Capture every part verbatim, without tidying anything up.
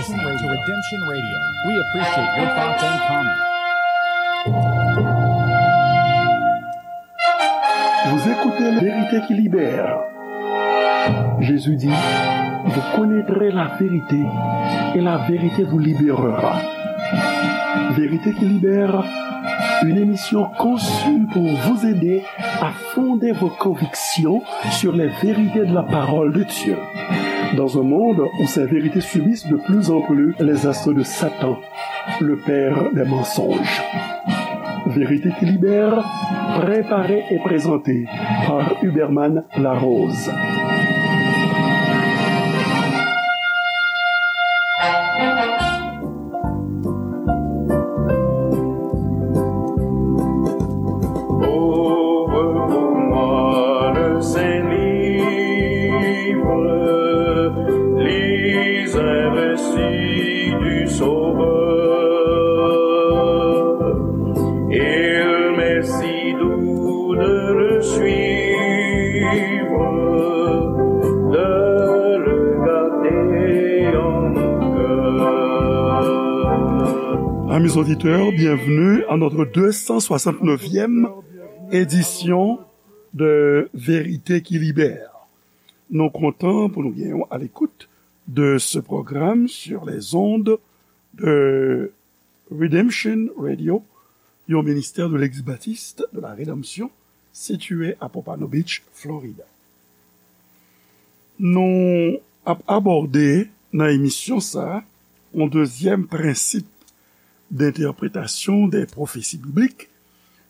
Listen to Redemption Radio. We appreciate your thoughts and comments. Vous écoutez La Vérité qui libère. Jésus dit, vous connaîtrez la vérité et la vérité vous libérera. Vérité qui libère, une émission conçue pour vous aider à fonder vos convictions sur les vérités de la parole de Dieu. Dans un monde où ces vérités subissent de plus en plus les assauts de Satan, le père des mensonges. Vérité qui libère, préparée et présentée par Huberman Larose. Ouvre pour moi le saint livre, lis un récit du Sauveur. Il m'est si doux de le suivre, de le garder en mon cœur. Amis auditeurs, bienvenue à notre deux cent soixante-neuvième édition de Vérité qui libère. Nou kontan pou nou gen w à l'écoute de ce programme sur les ondes de Redemption Radio, yon ministè de l'Église Baptiste de la Rédemption, sitiye à Pompano Beach, Florida. Nou ap abòde nan emisyon sa a yon dezyèm prensip d'interprétation des prophéties bibliques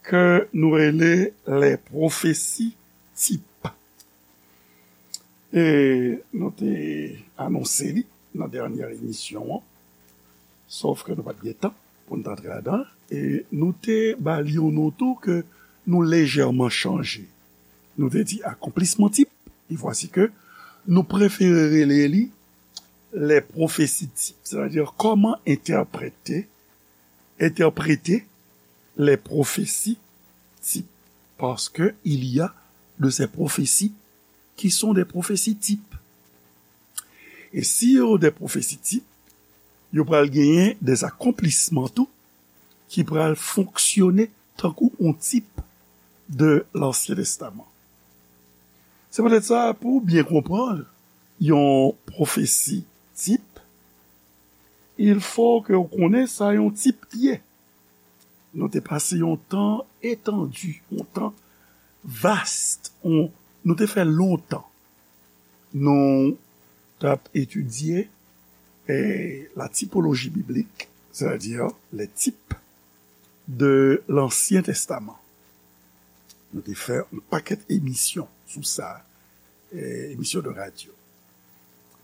ke nou rele les prophéties types. E nou te anonse li nan dènyè emisyon an, sòf ke nou pa t gen tan pou n t antre ladan, e nou te ba li yon non tou ke nou lejèman chanje. Nou te di akonplisman tip, e vwasi ke nou prefere rele li les prophéties types, sètadi kòman entèprete, entèprete les prophéties types, parce que il y a de ces prophéties qui sont des prophéties types. E si yo de pwofesi tip, yo pral genyen de akonplisman tou ki pral fonksyone tankou yon tip de Lansyen Testaman. Se poutèt sa, pou w byen konprann yon pwofesi tip, il faut que w konnen sa yon tip ye. Nou te pase yon tan etandi, yon tan vast, yon, nou te fè lontan. Nou t ap etidye, eh, la typologie biblique, c'est-à-dire les types de l'Ancien Testament. Nou te fè yon pakèt emisyon sou sa, eh, emisyon de radyo.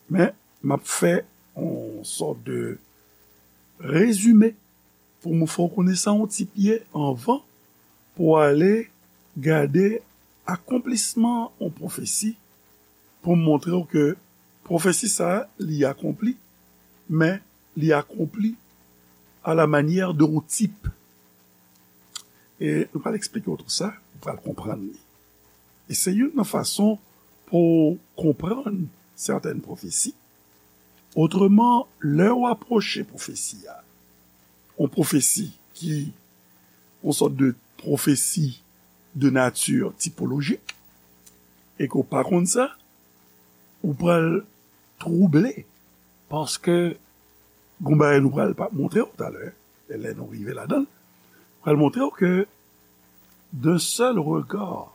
Men, m ap fè yon sòt de rezime pou m fè w konnen sa yon tip ye anvan pou w ale gade akonplisman yon pwofesi, pou m montre w ke pwofesi sa a, li akonpli, men li akonpli à la manière d'un type. E nou pral eksplike w tou sa, ou pral konprann li. E se youn nan fason pou w konprann sètèn pwofesi. Otreman, lè w apwoche pwofesi a, yon pwofesi ki yon sòt de pwofesi de nati tipolojik, e ke w pa konn sa, ou pral twouble, paske gon bagay nou pral pa montre w talè, e lè nou rive ladan l, pral montre w ke d'un seul regard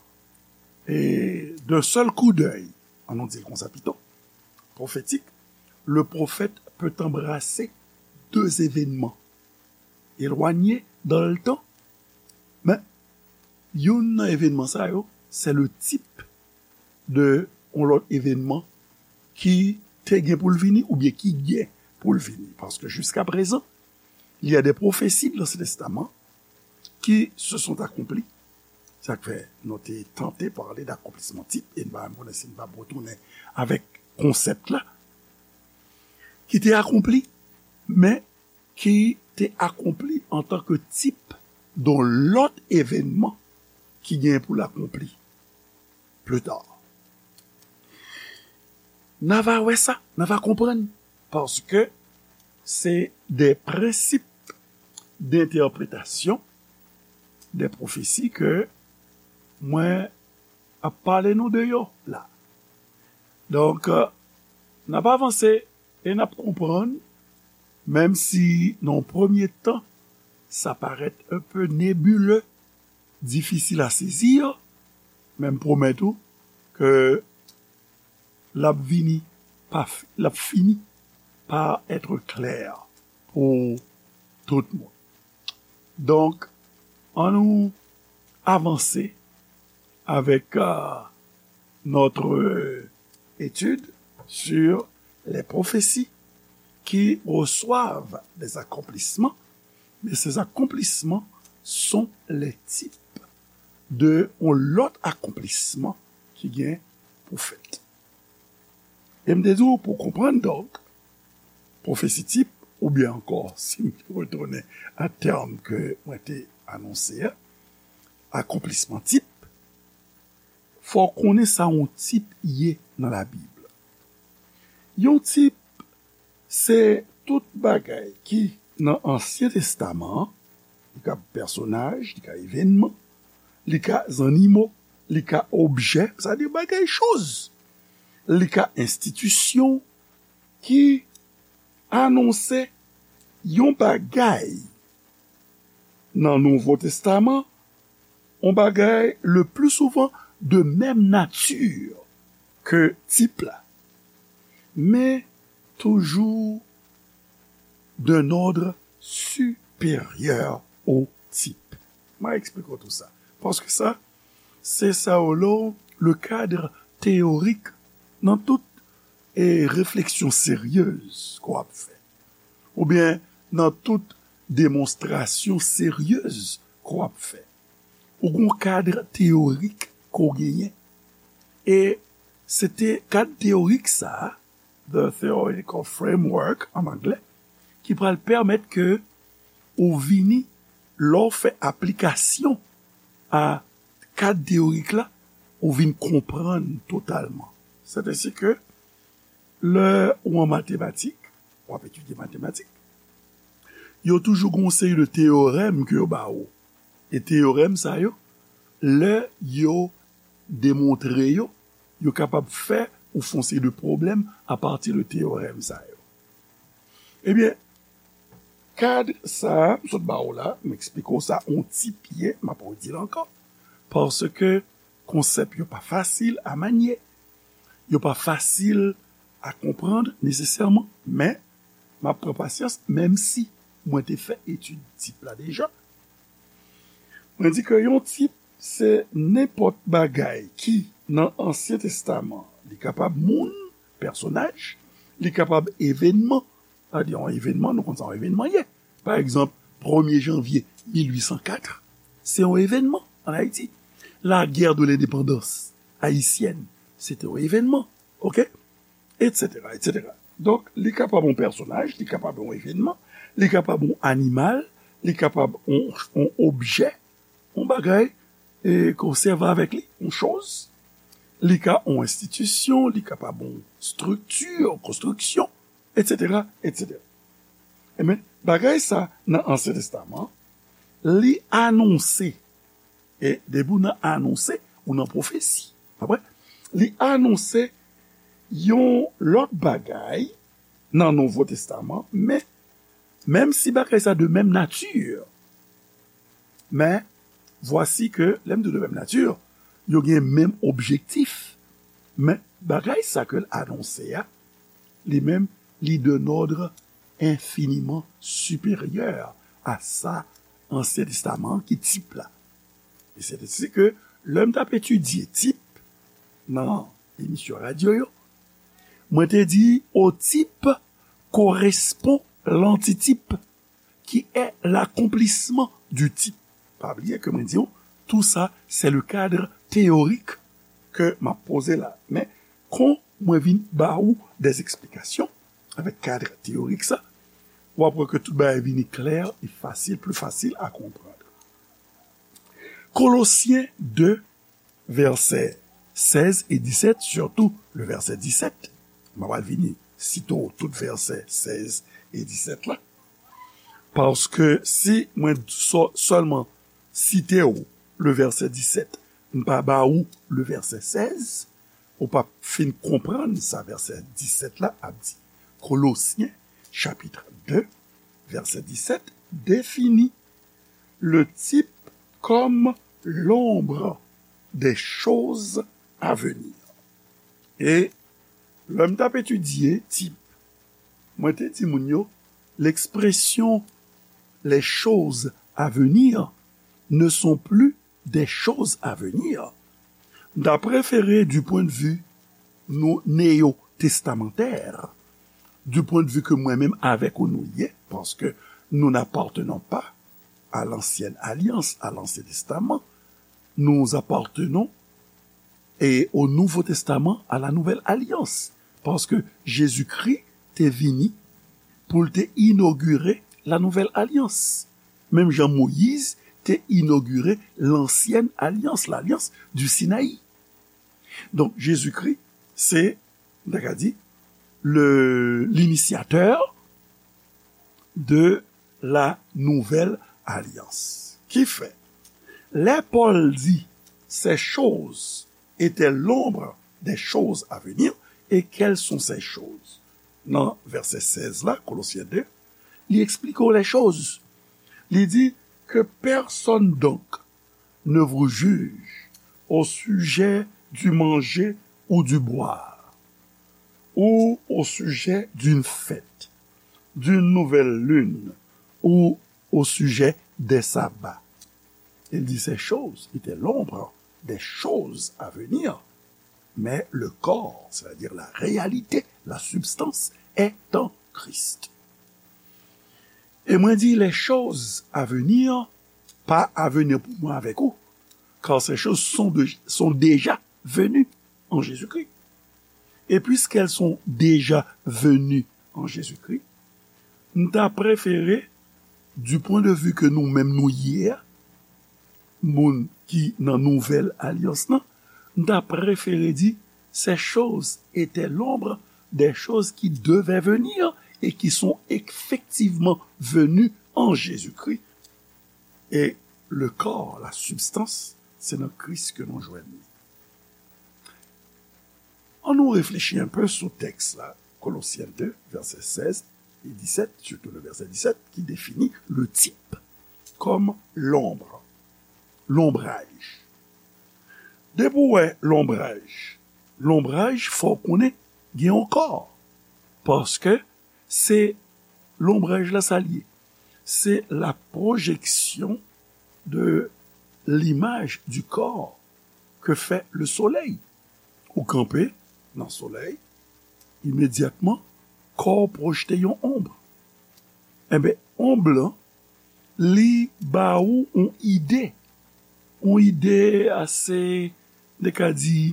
et d'un seul coup d'œil, an nou di l konsa pito, prophétique, le prophète peut embrasser deux événements éloignés dans le temps. Men, youn nan evènman sa yo, se le type de yon lòt evènman ki te gen pou l vini oubyen ki gen pou l vini. Paske jiska prezan, il y a des prophéties de l'Ancien Testament qui se sont accomplies. Sa k fè nou te tante pale d'accomplissement type, e m pa menm konnen si m p ap retounen avèk konsèp la, ki te akonpli, men ki te akonpli antanke tip don lòt evènman ki gen pou l akonpli pli ta. N a va wè sa, n a va konprann, paske se de prensip dentèpretasyon de pwofesi ke mwen ap pale nou de yo la. Donk, n ap avanse e n ap konprann, menm si nan yon premye tan, sa parèt un peu nébuleux, difisil a sezi, men m pwomèt ou ke l ap vini pa, l ap fini pa être clair pou tout moun. Donk, annou avanse avec euh, notre étude sur les prophéties qui reçoivent des accomplissements, mais ces accomplissements sont les types de yon lòt akonplisman ki gen pou fèt. E m te di w pou konprann donk pwofesi tip, oubyen ankò, si m retounen a tèm ke mwen te anonse a, akonplisman tip, fò w konnen sa yon tip ye nan Labib. Yon tip se tout bagay ki nan Ansyen Testaman an, li ka pèsonaj, li ka evènman, li ka zannimo, li ka objè, sa di bagay, choz, li ka enstitisyon ki anonse yon bagay nan Nouvo Testaman, yon bagay le plus souvent de même nature ke tip la, men toujou d'un ordre supérieur au type. Mwen eksplike w tou sa. Paske sa, se sa w le cadre théorique nan tout e refleksyon seryez ke w ap fè, oubyen nan tout demonstrasyon seryez ke w ap fè. Ou gen yon kad teyorik ke w genyen. E se te kad teyorik sa a, the theoretical framework an anglè, ki pral pèmèt ke ou vini, lè w fè aplikasyon a kad teyorik la, ou vin konprann totalman. Sètèsi ke lè ou an matematik, w ap etidye matematik, yo toujou gen yon seri de teyorèm ke yo ba ou. E teyorèm sa yo, lè yo demontre yo, yo kapab fè ou fè yon seri de pwoblèm apati de teyorèm sa yo. Ebyen, kad sa a, m sot ba ou la, m eksplike w sa, yon tip ye, m ap redi l ankò, paske konsèp yo pa fasil a manye, yo pa fasil a konprann nesesèman, men m ap pran pasyans, menm si mwen te fè etid tip la deja. Mwen di ke yon tip se nenpòt bagay ki nan Ansyen Testaman. Li kapab moun, pèsonaj, li kapab evènman. Sa di yon evènman, nou konn sa yon evènman ye. Pa egzanp, premye janvye mil uit san kat, se yon evènman ann Ayiti. La guerre de l'indépendance haïtienne, se te yon evènman, oke? Etsetera, etsetera. Donk, li kapab yon pèsonaj, li kapab yon evènman, li kapab yon animal, li kapab yon, yon objè, yon bagay, e, ke w sèvi avèk li, yon choz. Li ka yon enstitisyon, li kapab yon estrikti, yon konstriksyon, etsetera, etsetera. Ebyen, bagay sa nan Ansyen Testaman, li anonse. E depi w nan anonse, ou nan pwofesi. Konprann? Li anonse yon lòt bagay nan Nouvo Testaman, men menm si bagay sa de menm nati, men vwasi ke, lè m di de menm nati, yo gen menm objektif, men bagay sa ke l anonse a, li menm, li d'un ordre infiniment supérieur à sa Ansyen Testaman ki tip la. E se te si ke lè m t ap etidye tip nan emisyon radyo yo, mwen te di, au type correspond l'antitype qui est l'accomplissement du type. Pa bliye ke mwen di w, tout ça, c'est le cadre théorique ke m ap poze la. Men, kon mwen vin ba ou des explications avèk kad teyorik sa, w ap wè ke tout bagay vini klè e fasil, pli fasil a konprann. Kolosyen de, vèsè sèz e disèt, sitou le vèsè disèt, m ap al vini site w tout vèsè sèz e disèt la. Paske si mwen sò-, sèlman site w le vèsè disèt, m pa ba ou le vèsè sèz, ou p ap fin konprann sa vèsè disèt la ap di. Kolosyen, chapit de, vèsè disèt, définit le type comme l'ombre des choses à venir. E lè m t ap etidye tip, mwen te di moun yo, l'expression les choses à venir ne sont plus des choses à venir. M ta prefere, du point de vue nou néo-testamentaire, du point de vue ke mwen menm avèk ou nou ye, paske nous n'appartenons pas à l'ancienne alliance, à l'Ancien Testament, nous appartenons et au Nouveau Testament, à la Nouvelle Alliance. Paske Jezikri te vini pou l te inogire la nouvèl alyans. Menm jan Moyiz te inogire lansyèn alyans, l'alliance du Sinaï. Donk, Jezikri, se, m ta ka di, le, l'initiateur de la nouvelle alliance. Ki fè, lè Pòl di, ces choses étaient l'ombre des choses à venir, et quelles sont ces choses? Nan vèsè sèz la, Kolosyen de, li eksplike w les choses. Li di, que personne donc ne vous juge au sujet du manger ou du boire, ou au sujet d'une fête, d'une nouvelle lune, ou au sujet des sabbats. Il dit, ces choses étaient l'ombre des choses à venir, mais le corps, c'est-à-dire la réalité, la substance, est en Christ. Et mwen di, les choses à venir, pa avenir pou mwen avèk ou, car ces choses sont, de, sont déjà venues en Jésus-Christ. Et puisqu'elles sont déjà venues en Jésus-Christ, m ta prefere, du point de vue ke nou menm nou ye a, moun ki nan nouvèl alyans lan, m ta prefere di, ces choses étaient l'ombre des choses qui devaient venir et qui sont effectivement venues en Jésus-Christ. Et le corps, la substance, se nan Kris ke nou jwenn li. Ann nou reflechi un peu sou tèks la, Kolosyen de, vèsè sèz e disèt, surtout le verset dix-sept, qui définit le type comme l'ombre, lonbraj. Depi w wè lonbraj, lonbraj, fò w konnen gen yon kò. Paske se lonbraj la, sa l ye. C'est la projection de l'image du corps que fait le soleil. Ou kanpe nan solèy, imedyatman, kò w pwojte yon onb. Enben, onb lan, li ba ou yon ide. Yon ide ase, nou ka di,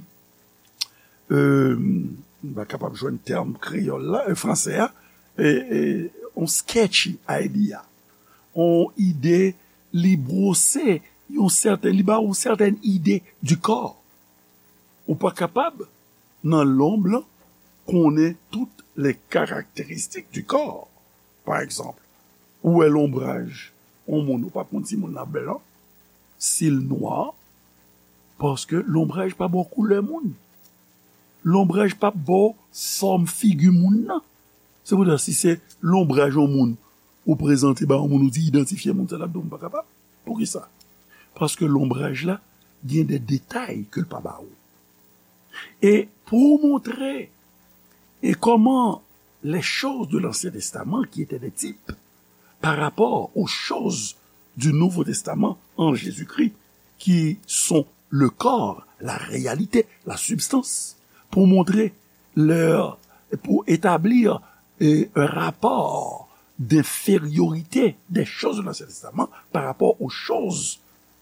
euh, m pa kapab jwenn tèm kreyòl la, euh, fransè a, e, e, yon sketchy idea. Yon ide, li bwose, yon sèten, li ba ou sèten ide du corps. Ou pa kapab, nan lonb lan, konnen tout les caractéristiques du corps. Pa egzanp, ou wè lonbraj yon moun, ou p ap konn si moun nan blan, si l nwa, paske lonbraj pa ba w koulè moun. Lonbraj p ap ba w fòm figi moun nan. Se poutèt si se lonbraj yon moun ou prezante ba yon moun, ou di idantifye moun sa, l ap di w m pa kapab. Poukisa? Paske lonbraj la gen de detay ke l pa ba ou. E pou w montre e kòman les choses de l'Ancien Testament, qui étaient des types, par rapport aux choses du Nouveau Testament en Jésus-Christ, qui sont le corps, la réalité, la substance, pou montre leur, pou établir, euh, un rapport d'infériorité des choses de l'Ancien Testament par rapport aux choses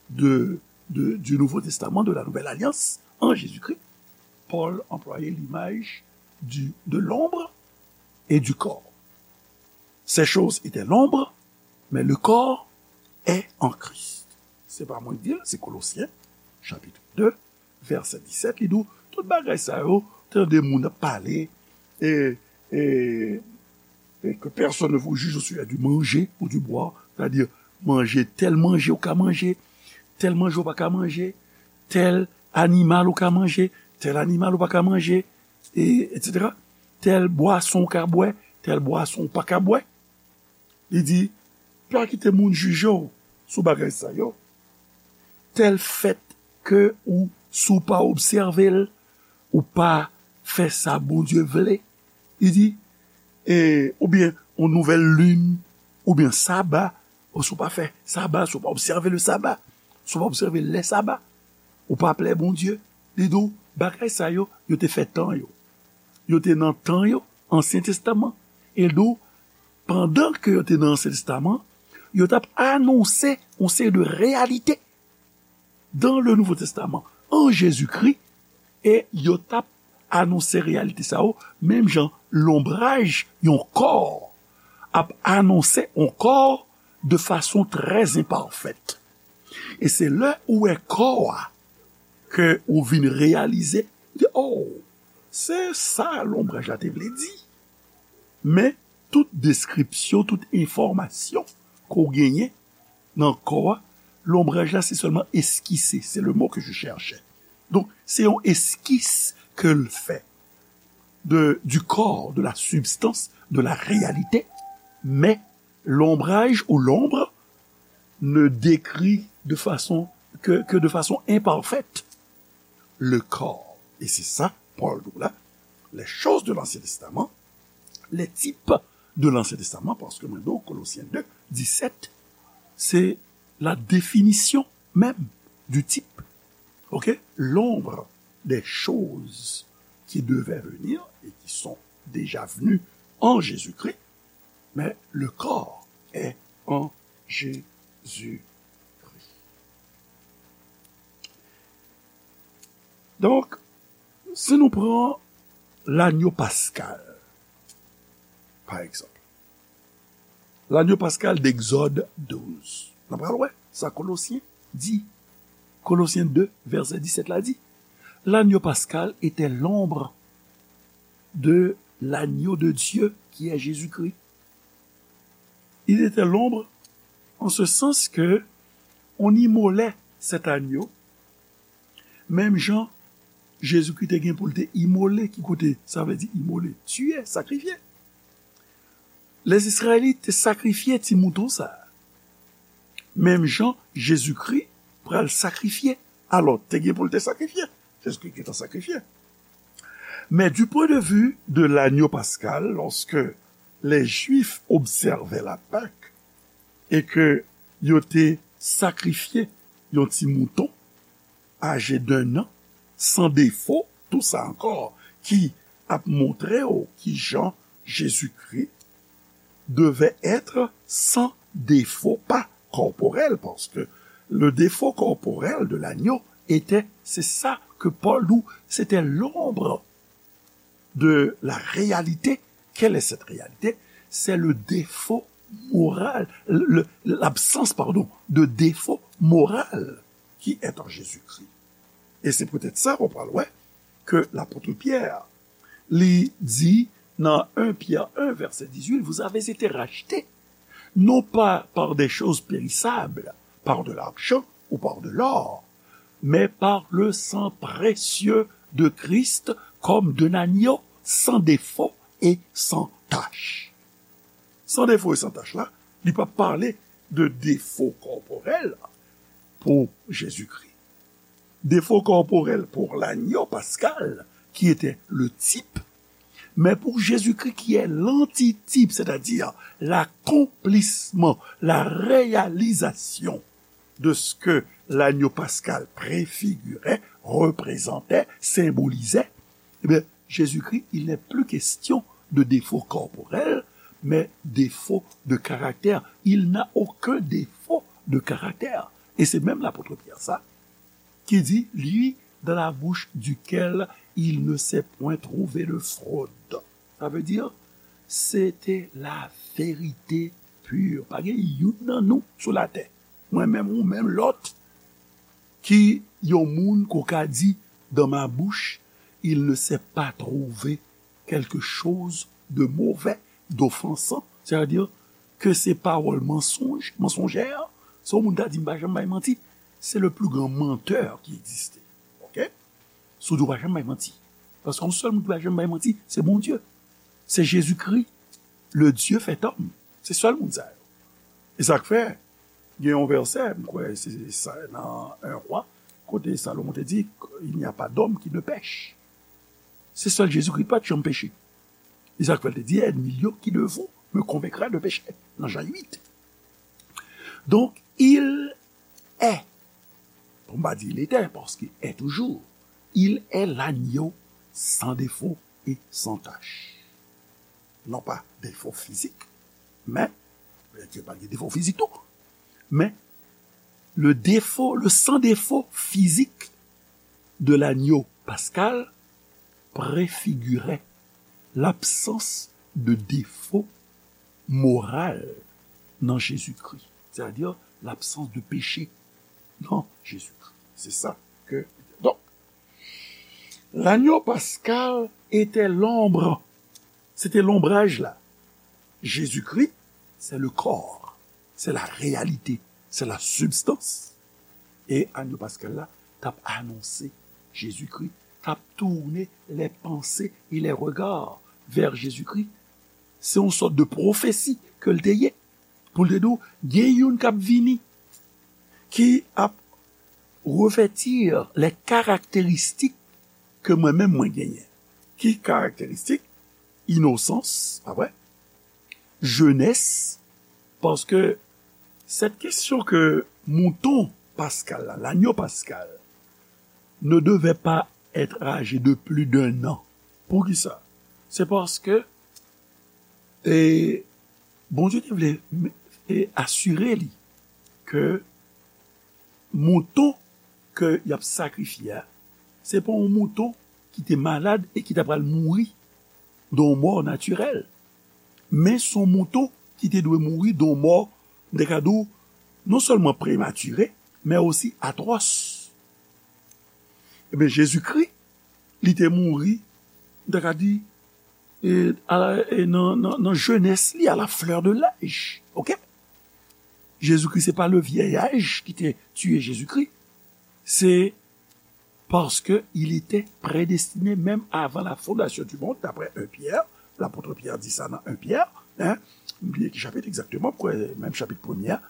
de, de, du Nouveau Testament, de la Nouvelle Alliance, en Jésus-Christ. Paul employait l'image du, de l'ombre et du corps. Ces choses étaient l'ombre, mais le corps est en Christ. Se pa mwen ki di l, se Kolosyen, chapit de, vèsè disèt, li di w, tout bagay sa yo, tande moun ap pale, e, e, Que personne ne vous juge au sujet du manger ou du boire, c'est-à-dire manje, tèl manje ou ka manje, tèl manje ou pa ka manje, tèl animal ou ka manje, tèl animal ou pa ka manje, e, etsetera. Tèl bwason ou ka bwè, tèl bwason ou pa ka bwè. Li di, pa kite moun jije w sou bagay sa yo. Tèl fèt ke ou, si w pa obsève l, ou pa fè sa Bondye vle. Li di, e, oubyen yon nouvèl lin, oubyen saba, ou si w pa fè saba, si w pa obsève le saba, si w pa obsève lè saba, ou pa plè Bondye. Li di w, bagay sa yo, yo te fè tan yo. Yo te nan tan yo, Ansyen Testaman. E li di w, pandan ke yo te nan Ansyen Testaman, yo t ap anonse yon seri de reyalite dans le Nouveau Testament, an Jezikri, e yo t ap anonse reyalite sa yo, menm jan lonbraj yon kò ap anonse yon kò de fason trè enpafèt. E se lè ou wè kò a ke ou vin reyalize, ou di, oh, se sa lonbraj la te vle di. Men, tout deskripsyon, tout enfòmasyon ke w genyen nan kò a, lonbraj la, se sèlman eskise. C'est le mot que je cherchais. Donk, se yon eskis ke l fè de, du corps, de la substance, de la réalité, mais l'ombrage ou l'ombre ne décrit de façon que, que de façon imparfaite le corps. Et c'est ça, Paul dit là, les choses de l'Ancien Testament, les types de l'Ancien Testament, parce que maintenant, Colossiens deux, dix-sept, c'est la définition même du type. OK? L'ombre des choses qui devaient venir et qui sont déjà venues en Jésus-Christ, mais le corps est en Jésus-Christ. Donk, si nou pran lanyo paskal, pa egzanp, lanyo paskal d'Egzòd douz, nou pral wè sa Kolosyen di. Kolosyen de, vèsè disèt la di, l'agneau pascal était l'ombre de l'agneau de Dieu qui est Jésus-Christ. Il était l'ombre en ce sens que on immolait cet agneau, menm jan Jezikri te gen pou l te imole, ki kote sa vle di imole, tiye, sakrifye. Lèzizrayelit te sakrifye ti mouton sa a. Menm jan Jezikri pral sakrifye. Alò, te gen pou l te sakrifye. Jezikri gentan sakrifye. Mais du point de vue de l'agneau pascal, lorsque les Juifs observaient la Pâque et que yo te sakrifye yon ti mouton, âgé d'un an, sans défaut, tout ça encore, qui ap montre w ki jan Jezikri devait être sans défaut, pas corporel, parce que le défaut corporel de l'agneau était, c'est ça que Paul dit, c'était l'ombre de la réalité. Quelle est cette réalité? C'est le défaut moral, le, l'absence, pardon, de défaut moral qui est en Jésus-Christ. Et c'est peut-être ça qu'on parle, ouais, que l'apôtre Pierre li di nan un Pierre un, verset dix-huit, vous avez été rachetés, non pas par des choses périssables, par de l'argent ou par de l'or, mais par le sang précieux de Christ, comme d'un agneau sans défaut et sans tache. Sans défaut et sans tache la, li pa pale de défaut corporel pour Jésus-Christ. Défaut corporel pour l'agneau pascal, qui était le type, mais pour Jésus-Christ qui est l'antitype, c'est-à-dire l'accomplissement, la réalisation de ce que l'agneau pascal préfigurait, représentait, symbolisait, eh bien, Jésus-Christ, il n'est plus question de défaut corporel, mais défaut de caractère. Il n'a aucun défaut de caractère. Et c'est même l'apôtre Pierre, ça, qui dit, lui, dans la bouche duquel il ne s'est point trouvé de fraude. Ça veut dire, c'était la vérité pure. Pa gen youn nan nou sou latè, mwen menm, ou menm, lòt, ki yon moun ke w ka di, dans ma bouche, il ne s'est pas trouvé quelque chose de mauvais, d'offensant, c'est-à-dire que se pawòl mansonj, mansonjè, se yon moun ta di m pa janm bay manti, c'est le plus grand menteur qui existe. Ok? Si w di w pa janm bay manti. Paske yon sèl moun ki pa janm bay manti, se Bondye. Se Jezikri, le Dieu fait homme. Se sèl moun sa yo. E sa k fè, gen yon vèsè, m kwè se sa nan un Roi, kote Salomon te di, il n'y a pas d'homme qui ne pèche. Se sèl Jezikri ki pa t janm peche. E sa k fè l te di, ennemi yo qui de vous me convaincra de péché, nan Jan uit. Donc, il est, pou m pa di il était, paske est toujours, il est l'agneau sans défaut et sans tache. Non pas défaut physique, mais, Bondye pa gen defo fizik tou, mais le défaut, le sans défaut physique de l'agneau pascal préfigurait l'absence de défaut moral dans Jésus-Christ, c'est-à-dire l'absence de péché dans Jésus-Christ. C'est ça que, donc, l'agneau pascal était l'ombre, c'était l'ombrage là. Jésus-Christ, c'est le corps, c'est la réalité, c'est la substance. E agneau pascal la t ap anonse Jezikri, t ap tourner les pensées et les regards vers Jésus-Christ. Se yon sòt de pwofesi ke l te ye. Pou l te di w, gen youn k ap vini, ki ap revètir les caractéristiques ke mwen menm mwen genyen. Ki karakteristik? Inosans, pa vre? Jenès, paske cette question que mouton pascal la, l'agneau pascal, ne devait pas être âgé de plus d'un an. Poukisa? Se paske, e, Bondye te vle, e, asire li ke mouton ke y ap sakrifye a, se pa yon mouton ki te malad e ki ta pral mouri de yon mò natirèl. Men se yon mouton ki te dwe mouri de yon mò, m te ka di w, non sèlman prematire, men osi atwòs. Ebyen, Jezikri, li te mouri, m te ka di, e, a la, e nan, nan, nan jenès li, à la fleur de l'âge. Ok? Jezikri, se pa le vieil âge ki te tiye Jezikri. Se parce que il était prédestiné même avant la fondation du monde, d'après un Pierre. L'apôtre Pierre di sa nan un Pierre, hein? M bliye ki chapit egzakteman, m kwè menm chapit premye a.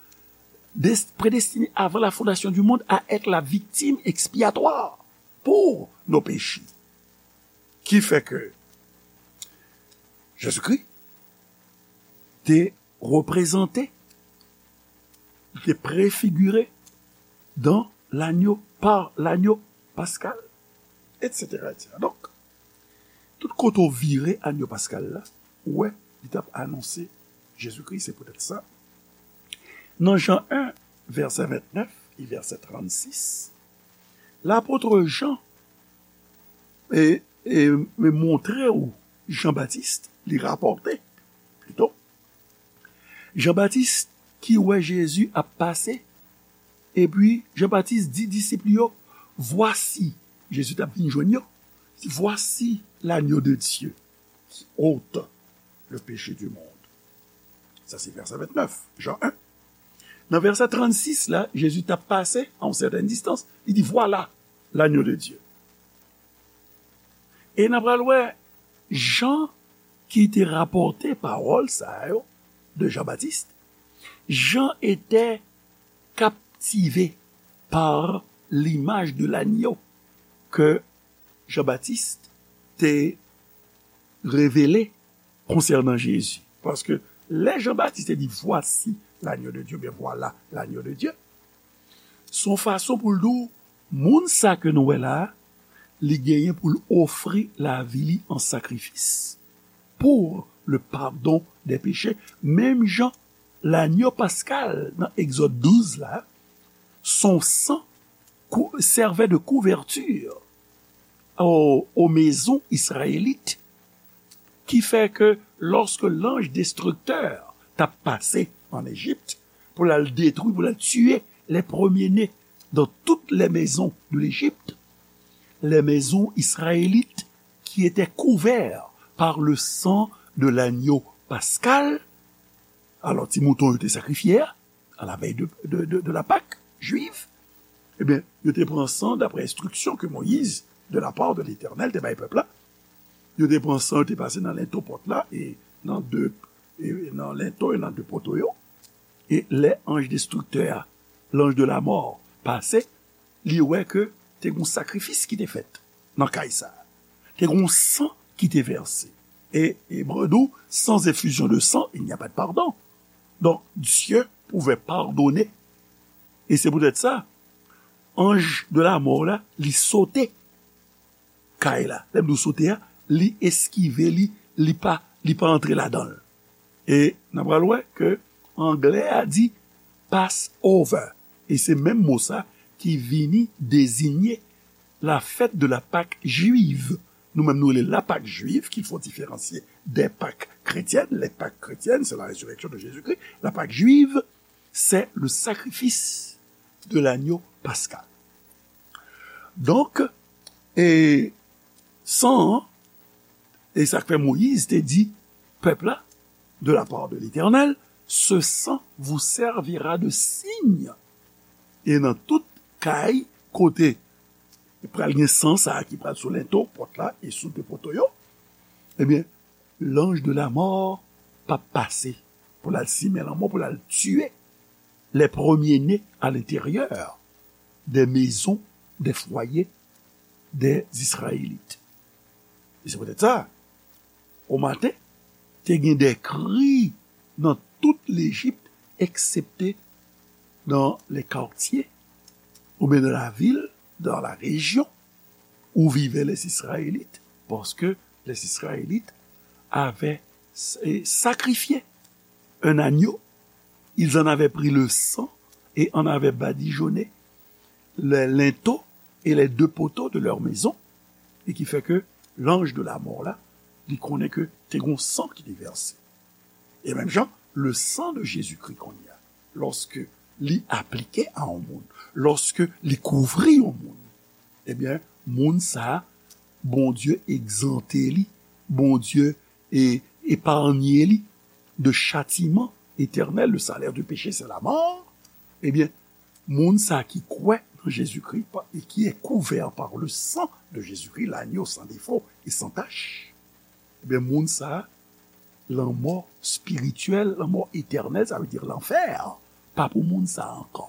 Des-, prédestiné avant la fondation du monde à être la victime expiatoire pour nos péchés. Ki fè ke Jezikri te reprezante, li te prefigire dans l'agneau, par l'agneau pascal, et cetera, et cetera. Donk, tout kote w vire agneau pascal la, ou wè, li t ap anonse Jezikri, se poutèt sa. Nan Jan un, vèsè vennèf e vèsè trannsis, lapot Jan e, e, e montre w Jan Batis, li rapòte, plito, Jan Batis ki wè Jezi ap pase, epi Jan Batis di disip li yo, Voici, Jezi t ap vin jwenn yo, Voici l'agneau de Dieu qui ôte le péché du monde. Sa se vèsè vennèf, Jan un. Nan vèsè trannsis la, Jezi t ap pase a yon sètèn distans, li di, Voilà l'agneau de Dieu. E n a pral wè Jan ki te rapòte pawòl sa yo de Jan Batis. Jean était captivé par l'image de l'agneau que Jean-Baptiste te revele konsènan Jezi. Paske lè Jan Batis te di, Voici l'agneau de Dieu, oubyen Voilà l'agneau de Dieu, se yon fason pou l di w, moun sa ke nou wè la a, li genyen pou l ofri lavi li an sakrifis pour le pardon des péchés. Menm jan lagno paskal nan Egzòd douz la, son san kou-, servait de couverture aux, aux maisons israélites, ki fè ke lòske lanj destriktè t ap pase an Ejipt pou l al detwi, pou l al tiye les premiers-nés dans toutes les maisons de l'Égypte, les maisons israélites qui étaient couverts par le sang de l'agneau paskal, alò ti mouton yo te sakrifye a, à la veille de, de, de, de la Pâque juive, ebyen, yo te pran san, d'après instruction que Moïse, de la part de l'Éternel, te bay pèp la, yo te pran san, yo te pase nan lento pòt la, e nan de, e nan lento, e nan de poto yo, e lè anj destriktè a, l'ange de la mort, pase, li wè ke te gon sakrifis ki te fèt nan kay sa a. Te gon san ki te vèse. E Ebre di w, sans effusion de sang, il n'y a pas de pardon. Donc, Dieu pouvait pardonner. E se poutèt sa, anj de la mort la, li sote kay la. Lè m di w sote a, li eskive li, li pa, li pa antre ladan l. E n a pral wè ke anglè a di Passover. E se menm mo sa ki vini deziye la fête de la Pâque juive. Nou menm nou rele la Pâque juive, qu'il faut différencier des Pâques chrétiennes. Les Pâques chrétiennes, c'est la résurrection de Jésus-Christ. La Pâque juive, c'est le sacrifice de l'agneau pascal. Donk, e san an, e sa k fè Moyiz te di pèp la, de la part de l'Éternel, ce sang vous servira de signe. E nan tout kay kote pral gen san sa a ki pral sou lento pòt la e sou de poto yo, ebyen, l'ange de la mort p ap pase pou l al simen lanmò, pou l al tiye les premiers-nés à l'intérieur des maisons, des foyers des Israélites. E se poutèt sa, o maten, te gen de kri nan tout Lejip, eksepte dans les quartiers, oubyen dans la ville, dans la région où vivaient les Israélites, parce que les Israélites avaient s- sacrifié un agneau, ils en avaient pris le sang et en avaient badigeonné les linteaux et les deux poteaux de leur maison, e ki fè ke l'ange de la mort la, li konnen ke te gon san ki te vèse. E menm jan, le sang de Jésus-Christ kounye a, lòske li aplike a yon moun, lòske li kouvri yon moun, ebyen, moun sa a, Bondye egzante li, Bondye e eparnye li de châtiment éternel, le salaire du péché, c'est la mort, ebyen, moun sa ki kwè nan Jezikri pa- e qui est couvert par le sang de Jésus-Christ, l'agneau sans défaut et sans tache, ebyen, moun sa, lanmò spirityèl, lanmò etènèl, sa vle di lanfè, pa pou moun sa ankò.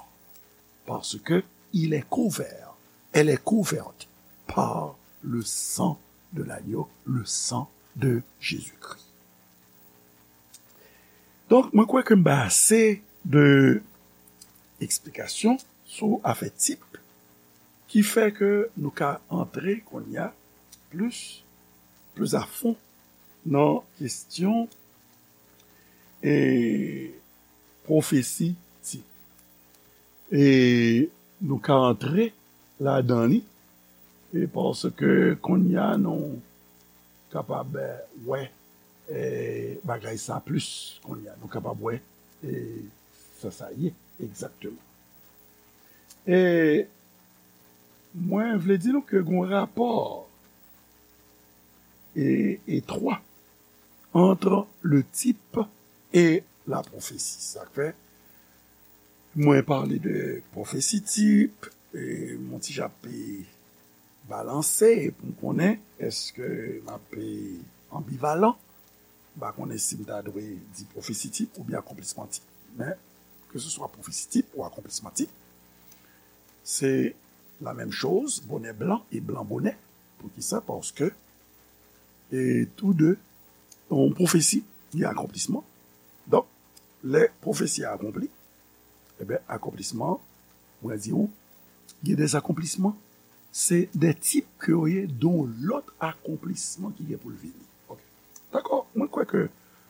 Parce que il est couvert, elle est couverte par le sang de l'agneau, le sang de Jésus-Christ. Donk, mwen kwè ke m bay ase de eksplikasyon sou afè tip ki fè ke nou ka antre kounye a plis, plis a fon nan kesyon e pwofesi tip. E nou ka antre ladan li, e paske kounye a nou kapab, eh, wè, eh, bagay sa plis kounye a. Nou kapab wè, eh, sa sa ye egzakteman. E mwen vle di nou ke gon rapò e, etwa entre le type et la prophétie. Sa k fè mwen pale de pwofesi tip, e m ti jan ap balanse pou m konnen èske m ap anbivalan. M pa konnen si m ta dwe di pwofesi tip oubyen akonplisman tip. Men, ke se swa pwofesi tip ou akonplisman tip, se la menm choz, bonè blan e blan bonè. Poukisa? Paske, e tou de, yon pwofesi, gen akonplisman. Donk, lè pwofesi a akonpli, ebyen, akonplisman, mwen di w, gen de akonplisman, se de tip ke yo ye, de yon lòt akonplisman ki gen pou l vini. Ok. Dakò, mwen kwè ke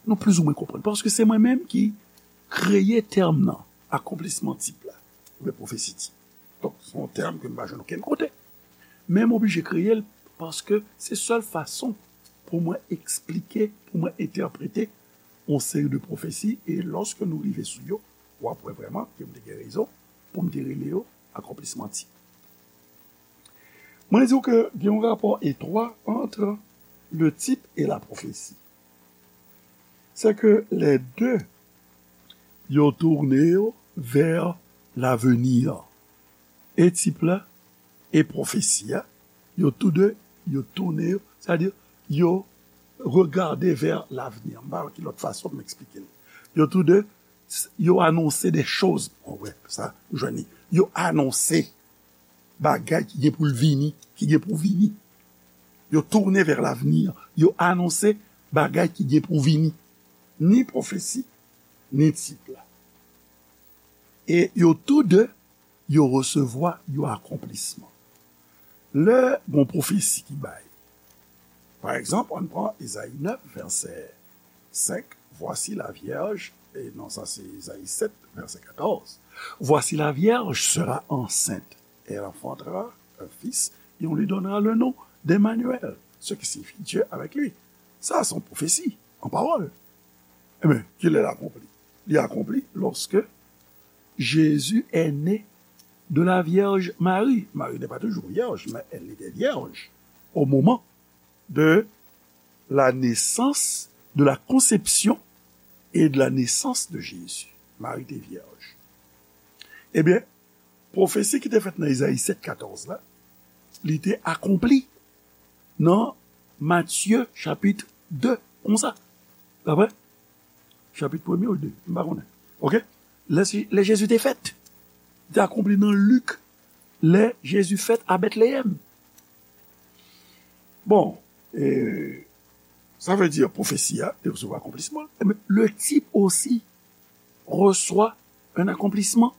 nou plizoumwen konprann. Paske se mwen menm ki kreye tèm nan, akonplisman tip la, oubyen pwofesi tip. Donk, se yon tèm ke m pa jwenn okenn kote. Men m oblije kreye l paske se sèl fason pou mwen eksplike, pou mwen entèprete yon seri de pwofesi, e lòske nou rive sou yo, w ap wè vrèman ke m te gen rezon pou m te rele yo akonplisman tip. Mwen di w ke gen yon rapò etwa entre le type et la prophétie. c'est que les deux, yo tourné yo vers l'avenir. E tip la, e pwofesi a, yo tou de, yo tourné yo, sètadi, yo regardé vers l'avenir. M pa wè ki lòt fason pou m eksplike l. Yo tou de, s- yo anonse de choz. Bon, wè, sa, ou jwenn li. Yo anonse bagay ki gen pou l vini, ki gen pou vini. Yo tourné vers l'avenir. Yo anonse bagay ki gen pou vini. Ni pwofesi, ni tip la. E yo tou de, yo resevwa yon akonplisman. Lè gon pwofesi ki bay, pa egzanp, ann pran Ezayi nèf, vèsè senk, Voici la vierge, e non, sa se Ezayi sèt, vèsè katòz. Voici la vierge sera enceinte, elle enfantera un fils, et on lui donnera le nom d'Emmanuel, ce qui signifie Dieu avec lui. Sa se yon pwofesi, an pawòl. Ebyen, ki lè l akonpli? Li akonpli lorsque Jésus est né de la Vierge Marie. Marie n'est pas toujours vierge, mais elle était vierge au moment de la naissance, de la conception et de la naissance de Jésus. Marie était vierge. Ebyen, pwofesi ki te fèt nan Ezayi sèt katòz la, li te akonpli nan Matye chapit de, konsa. Daprè? Chapit premye ou de, m pa konnen. Oke? Lè, lè Jezi te fèt, li te akonpli nan Lik, lè Jezi fèt a Betleyèm. Bon, e, sa vle di pwofesi a te resevwa akonplisman, men le type aussi reçoit un accomplissement.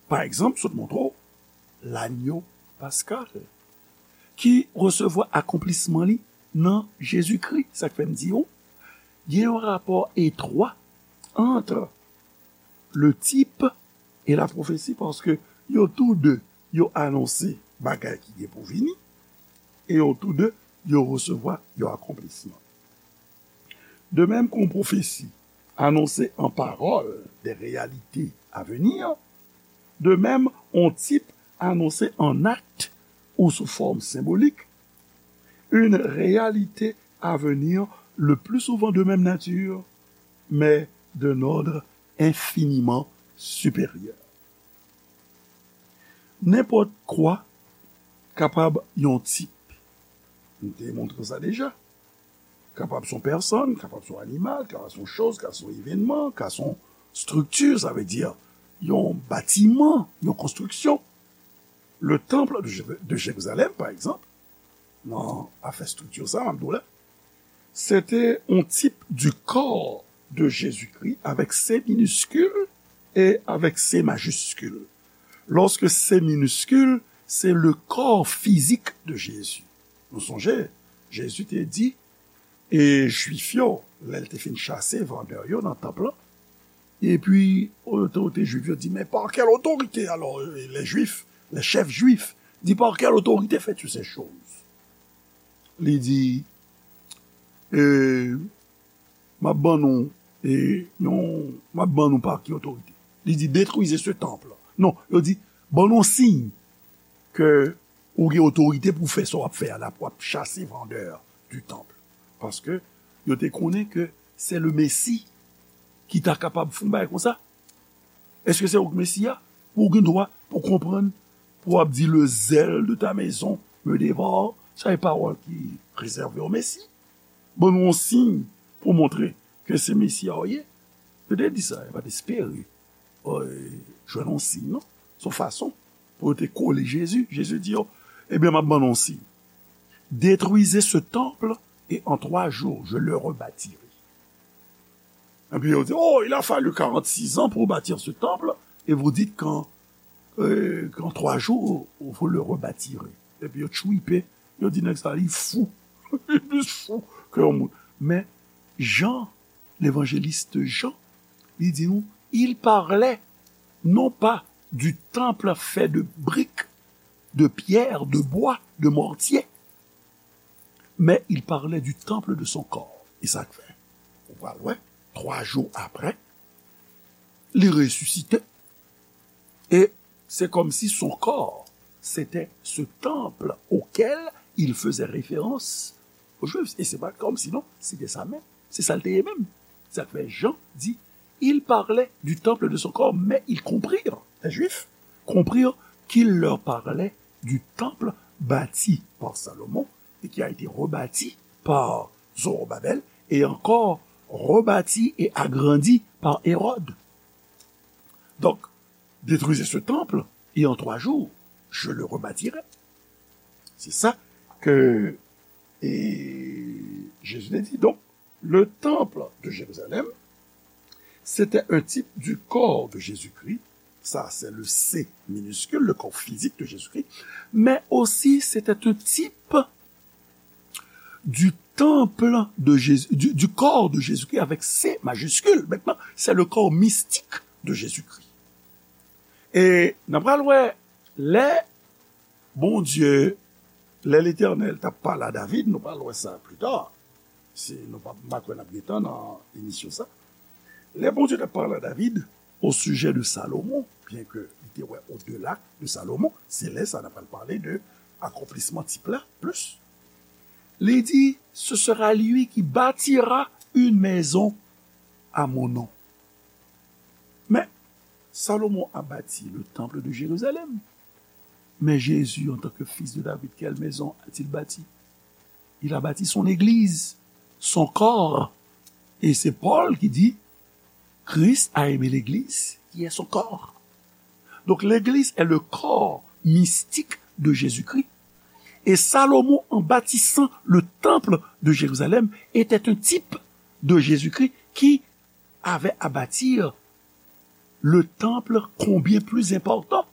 Pa egzanp, sot montre w, lanyo paskal, ki resevwa akonplisman li nan Jezikri. Sa k fè m di w, gen yon rapò etwa ant le type e la pwofesi, paske yo tou de, yo anonse bagay ki gen pou vini, e yo tou de, yo resevwa yon akonplisman. De même qu'une prophétie annonce en parole des réalités à venir, de même un type annonce en acte ou sous forme symbolique une réalité à venir, le plus souvent de même nature, mais d'un ordre infiniment supérieur. Nenpòt kwa kapab yon tip. M te montre sa deja. Kapab se yon pèsòn, kapab se yon animal, kapab se yon choz, kapab se yon evènman, kapab se yon estrikti, sa vle di yon batiman, yon konstriksyon. Le temple de Jé- de Jérusalem, pa egzanp, nan afè estrikti sa, m ap di w la, c'était un type du corps de Jésus-Christ avec C minuscule et avec C majuscule. Lorsque C minuscule, c'est le corps physique de Jésus. Nou sonje, Jezi te di, e Jwif yo, lè l te fin chase vandè yo nan tanp lan, epi otorite jwif yo di, men pa kèl otorite, alò, les Juifs, les chefs juifs, di, par quelle autorité fais-tu ces choses? Li di, e, m ap ban nou, e, yon, m ap ban nou pa ki otorite. Li di, détruisez ce temple. Non, yo di, ban nou siy ke ou gen otorite pou fè sa w ap fè a la, pou w ap chase vandè du temple. Paske yo te konnen ke se le Mesi ki ta kapab fè yon bagay konsa. Èske se ou k Mesi a? Ou gen dwa pou konprann, pou w ap di, le zèl de ta maison me dévore. Sa e pawòl ki rezève o Mesi. Ban nou yon siy pou montre ke se Mesi a w ye. Yo te di sa, yo pa t espere, e, jwenn yon siy, non. Se yon fason pou yo te kole Jezi. Jezi di yo, ebyen, m ap ban nou yon siy. Détruisez ce temple et en trois jours, je le rebâtirai. Epi yo di, oh, il a fallu quarante-six ans pour bâtir ce temple, et vous dites qu'en, euh, qu'en trois jours, vous le rebâtirez. Epi yo tchwipe, yo di nèg sa, li fou. Li plis fou ke yon moun. Men, Jan, levanjelis Jan, li di nou, il parlait non pas du temple fait de briques, de pierre, de bois, de mortier, mais il parlait du temple de son corps. E sa k fè, ou pral wè, twa jou apre, li resisite. E se kòmsi son corps, c'était ce temple auquel il faisait référence aux Juifs. E se pa kòmsi, non, se te sa menm. Se sa l te ye menm. Sa k fè Jan di, ils parlaient du temple de son corps, mais ils comprirent, les Juifs comprirent qu'il leur parlait du temple bâti par Salomon et qui a été rebâti par Zorobabel et encore rebâti et agrandi par Hérode. Donc, détruisez ce temple et en trois jours, je le rebâtirai. C'est ça que et Jésus te dit. Donc, le temple de Jérusalem, c'était un type du corps de Jésus-Christ. Ça, c'est le C minuscule, le corps physique de Jésus-Christ. Mais aussi, c'était un type du temple de Jésus, du, du corps de Jésus-Christ avec C majuscule. Maintenant, c'est le corps mystique de Jésus-Christ. E n ap pral wè lè Bondye, lè Letènèl t ap pale a David, nou pral wè sa pli ta. Se, nou pa, m pa kwè n ap gentan nan emisyon sa. Lè Bondye t ap pale a David au sujet de Salomon, byen ke li te wè au-delà de Salomon, se lè sa n ap pral pale de akonplisman tip la plis. Li di, ce sera lui qui bâtira une maison à mon nom. Mais Salomon a bâti le temple de Jérusalem. Mais Jésus, en tant que fils de David, quelle maison a-t-il bâti? Il a bâti son église, son corps. Et c'est Paul qui dit, Christ a aimé l'église, qui est son corps. Donc l'église est le corps mystique de Jésus-Christ. Et Salomon, en bâtissant le temple de Jérusalem, était un type de Jésus-Christ qui avait à bâtir le temple combien plus important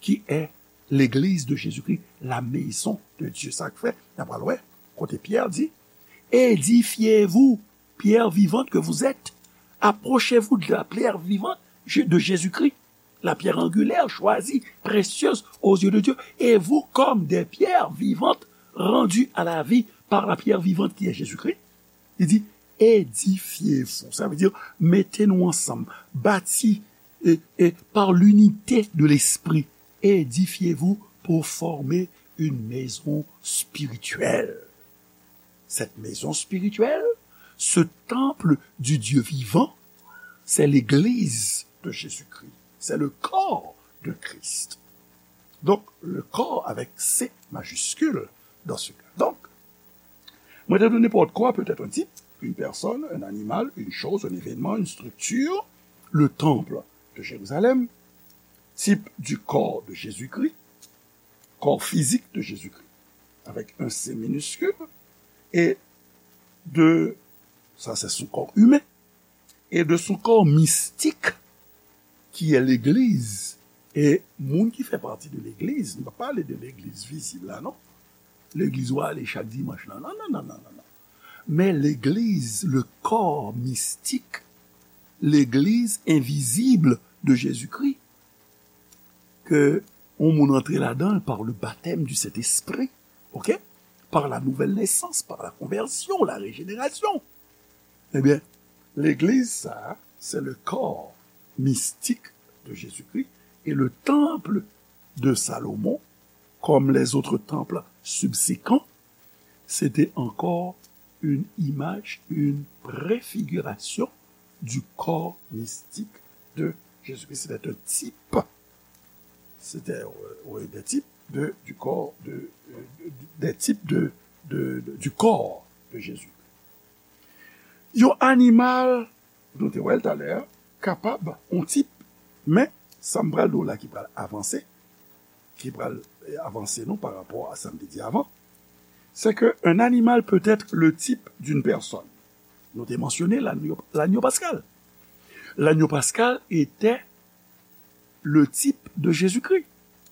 qui est l'église de Jésus-Christ, la maison de Dieu. Sa k fè, n ap pral wè, kote Pyè di, édifiez-vous, pierre vivante que vous êtes, approchez-vous de la pierre vivante de Jésus-Christ, la pierre angulaire, choisie, précieuse aux yeux de Dieu, et vous comme des pierres vivantes rendues à la vie par la pierre vivante qui est Jésus-Christ. Li di, édifiez-vous. Sa vle di, mete nou ansanm, bati, e, e, par l'unité de l'esprit, édifiez-vous pour former une maison spirituelle. Cette maison spirituelle, ce temple du Dieu vivant, c'est l'église de Jésus-Christ. C'est le corps de Christ. Donc, le corps avec C majuscule dans ce cas. Donc, mwen te di nenpòt kwa, peut-être un type, une personne, un animal, une chose, un événement, une structure, le temple de Jérusalem, type du corps de Jésus-Christ, corps physique de Jésus-Christ, avec un C minuscule, et de, ça c'est son corps humain, et de son corps mystique, qui est l'Église. E moun ki fè pati de legliz, nou pa pale de legliz vizib la, non. Legliz ou ale chak dimanch la, non, non, non, non, non, non. Men legliz, le corps mystique, legliz envizib de Jésus-Christ, ke yon moun antre ladan l par le baptême du Saint-Esprit, ok? Par la nouvelle naissance, par la conversion, la régénération. Ebyen, legliz sa a, c'est le corps mystique de Jésus-Christ et le temple de Salomon, comme les autres temples subséquents, c'était encore une image, une préfiguration du corps mystique de Jésus-Christ. C'était un type, c'était, euh, oui, des types de, du corps de, euh, de- des types de, de- de- du corps de Jésus. Yon animal, nou te wè l talè, kapab, yon tip, men sa m pral di w la ki pral avanse, ki pral, eh, avanse nou pa rapò a sa m te di avan, c'est que un animal peut être le type d'une personne. Nou te mansyone l'agneau, l'agneau pascal. L'agneau pascal était le type de Jésus-Christ.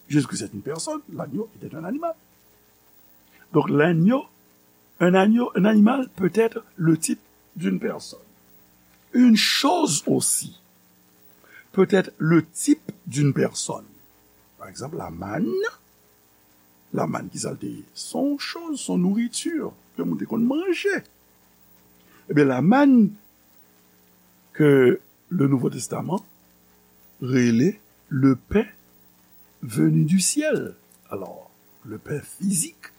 Jésus-Christ est une personne, l'agneau était un animal. Donc l'agneau, un agneau, un animal peut être le type d'une personne. Une chose aussi peut être le type d'une personne. Par exemple, la manne. La manne, ki sa l te ye? Son chose, son nourriture, ke moun te konn manje. Ebyen, la manne ke le Nouveau Testament rele le pain venu du ciel. Alors, le pain physique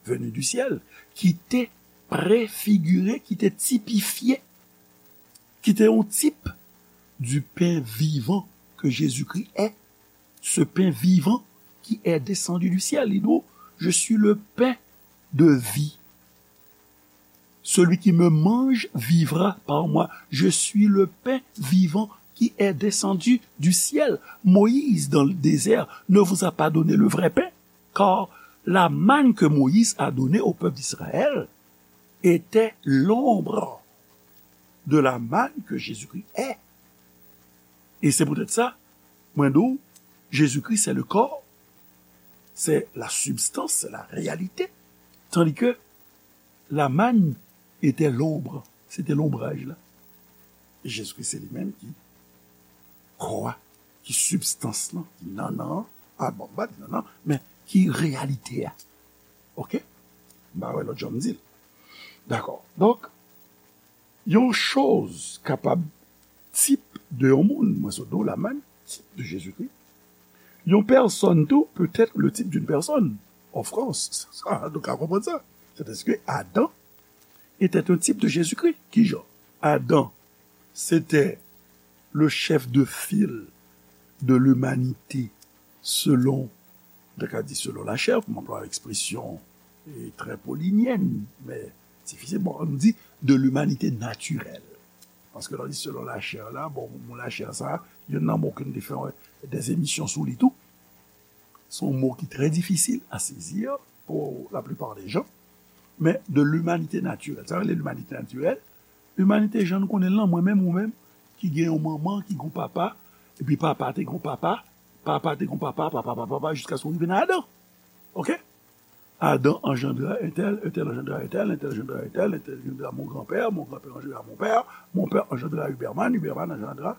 venu du ciel, ki te prefigire, ki te tipifye qui était un type du pain vivant que Jésus-Christ est, ce pain vivant qui est descendu du ciel. Il dit, je suis le pain de vie. Celui qui me mange vivra par moi. Je suis le pain vivant qui est descendu du ciel. Moïse, dans le désert, ne vous a pas donné le vrai pain, car la manne que Moïse a donnée au peuple d'Israël était l'ombre de la manne que Jésus-Christ est. Et c'est peut-être ça, mwen di w, Jésus-Christ, c'est le corps, c'est la substance, c'est la réalité. Tandis que la manne était l'ombre, c'était l'ombrage là. E Jezikri se li menm ki kò a, ki sibstans lan, ki nannan an, a bon, m pa di nannan, men ki reyalite a. Oke? M pa wè lòt jan m di l. Dakò. Donk, yon choz kapab tip de yon moun, mwen sot di w la menm, tip de Jezikri. Yon pèsòn tou peut être le type d'une personne. Of course. Sa, nou ka konprann sa. C'est parce que Adam était un type de Jésus-Christ. Kijan? Adam, c'était le chef de file de l'humanité selon, nou ka di selon la chair, pou m anplwaye ekspresyon e, trè polinyèn, men difisil. Bon, nou di de l'humanité naturelle. Paske lè w di selon la chair la, bon, mo la chair sa, youn nan mo ke nou te fè, euh, des émissions sou li tou. Se yon mo ki trè difisil a sezi pou la plupart des gens. Men de l'humanité naturelle. Sa rele l'humanité naturelle. Limanite jan nou konnen l lan, mwen menm, ou menm, ki gen yon manman, ki gen yon papa, epi papa te gen yon papa, papa te gen yon papa, papa, papa, papa, jiskaske w rive nan Adan. Oke? Adan anjandra entèl, entèl anjandra entèl, entèl anjandra entèl, entèl anjandra mon granpè, mon granpè anjandra mon pè, mon pè anjandra Uberman, Uberman anjandra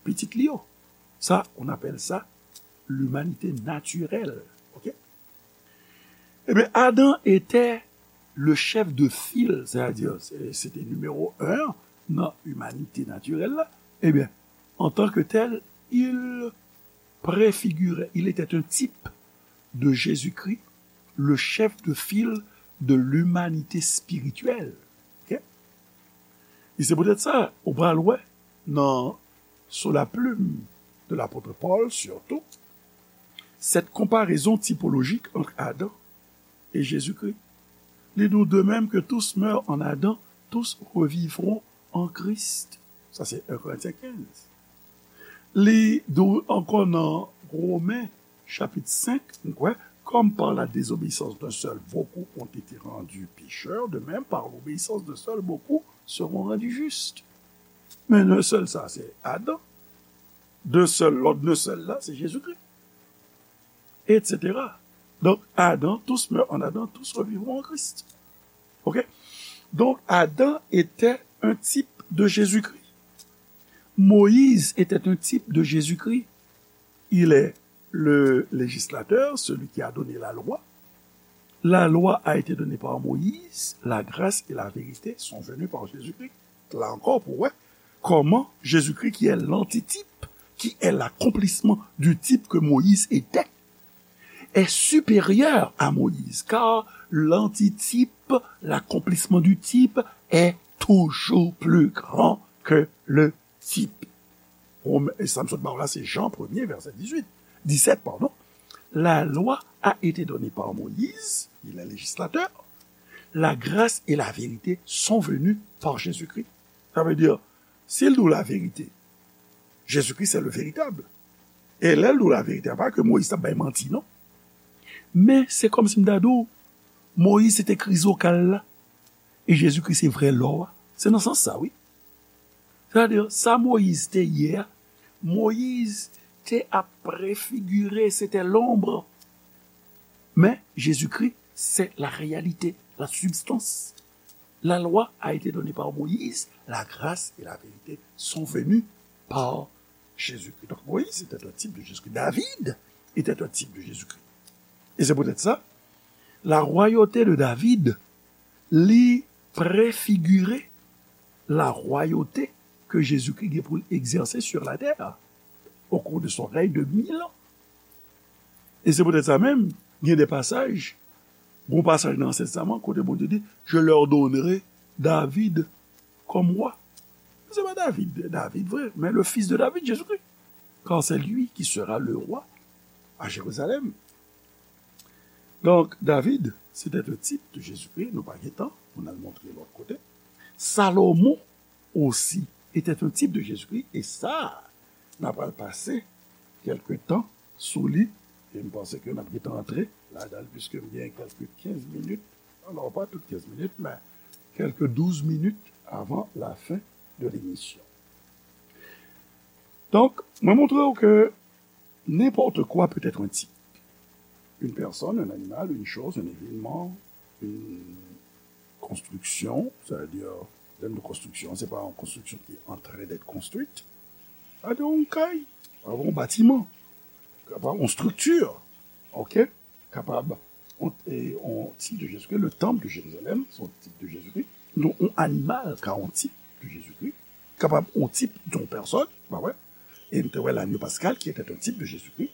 pitit li yo. Sa, on appelle ça l'humanité naturelle. Oke? Ebyen, Adam était le chef de file, c'est-à-dire, se, se te nimewo en nan imanite natirèl la. Ebyen, en tant que tel, il préfigurait, il était un type de Jésus-Christ, le chef de file de l'humanité spirituelle. Oke? E se poutèt sa, ou pral wè nan Sous la plume de l'apôtre Paul, surtout, cette comparaison typologique entre Adam et Jésus-Christ. Li di w, de même que tous meurent en Adam, tous revivront en Christ. Sa se en Korentyen kenz. Li di w ankò nan Women, chapit senk, nou kwè, comme par la désobéissance d'un seul, beaucoup ont été rendus pécheurs, de même, par l'obéissance d'un seul, beaucoup seront rendus justes. Men d'un seul sa, se Adan. D'un seul, lòt d'un seul la, se Jezikri. Et cetera. Donk, Adan, tous meurent en Adam, tous revivront en Christ. Oke? Donk, Adam était un type de Jésus-Christ. Moïse était un type de Jésus-Christ. Il est le législateur, celui qui a donné la loi. La loi a été donnée par Moïse, la grâce et la vérité sont venues par Jésus-Christ. La ankò, pou wè kòman Jésus-Christ, qui est l'antitype, qui est l'accomplissement du type que Moïse était, est supérieur à Moïse, car l'antitype, l'accomplissement du type est toujours plus grand que le type. Sa m sot ba w la, se Jan premye, vèsè dizuit, disèt, pardon. La loi a été donnée par Moïse, il est législateur. La grâce et la vérité sont venues par Jésus-Christ. Sa vle di, si l di w laverite, Jezikri se le veritab. E lè l di w laverite, a pa ke Moyiz t ap bay manti, non. Men se kòmsi m ta di w, Moyiz se te krizokal la, e Jezikri se vrè lò a. Se nan sans sa, wi. Sètadi, sa Moyiz te ye a, Moyiz te ap prefigire, se te lonb. Men Jezikri se la réalité, la substance. La loi a été donnée par Moïse, la grâce et la vérité sont venues par Jésus-Christ. Donc Moïse était un type de Jésus-Christ. David était un type de Jésus-Christ. Et c'est peut-être ça, la royauté de David, li préfigurait la royauté que Jésus-Christ gen pou l egzèse sur la terre au cours de son règne de mille ans. E se poutèt sa menm, gen de pasaj, gon pasaj nan Ansyen Testaman kote Bondye di, je leur donnerai David comme roi. se pa David, David vre, men le fils de David, Jésus-Christ. Car c'est lui qui sera le roi à Jérusalem. Donk, David, se te yon tip de Jezikri, nou pa gen tan pou n al montre lòt kote. Salomon osi, était un type de Jésus-Christ, e sa, n a pral pase kèlke tan sou li, e m panse ke n ap gentan antre ladan l, piske m gen kèlke kenz minit, alò pa tout kenz minit, men kèlke douz minit avan la fen de lemisyon. Donk, mwen montre w ke nenpòt kwa pé èt yon tip. Une personne, un animal, une chose, un événement, une construction, c'est-à-dire, lè nou di konstriksyon, se pa yon konstriksyon ki antren d'être construite. Sa vle di yon kay, yon batiman, kapab yon strikti, ok? Kapab yon, e, yon tip de Jezikri, le temple de Jérusalem, se yon tip de Jezikri. Non, yon animal ka yon tip de Jezikri. Kapab yon tip de yon pèsòn, pa vre? E nou te wè l'agneau pascal qui était un type de Jésus-Christ.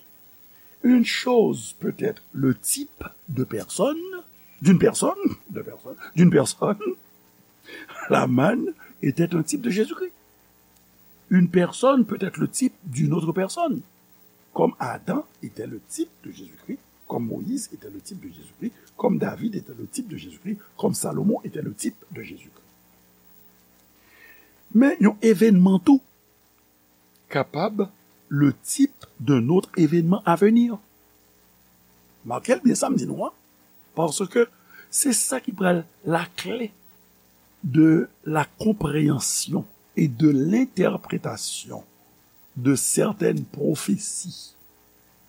Une chose peut être le type de personne, d'une personne, de personne, d'une personne. La manne était un type de Jésus-Christ. Une personne peut être le type d'une autre personne. Comme Adam était le type de Jésus-Christ, comme Moïse était le type de Jésus-Christ, comme David était le type de Jésus-Christ, comme Salomon était le type de Jésus-Christ. Men yon evènman tou kapab le type d'un autre événement à venir. Make l byen sa m di nou an, paske se sa ki pral la clé de la compréhension et de l'interprétation de certaines prophéties.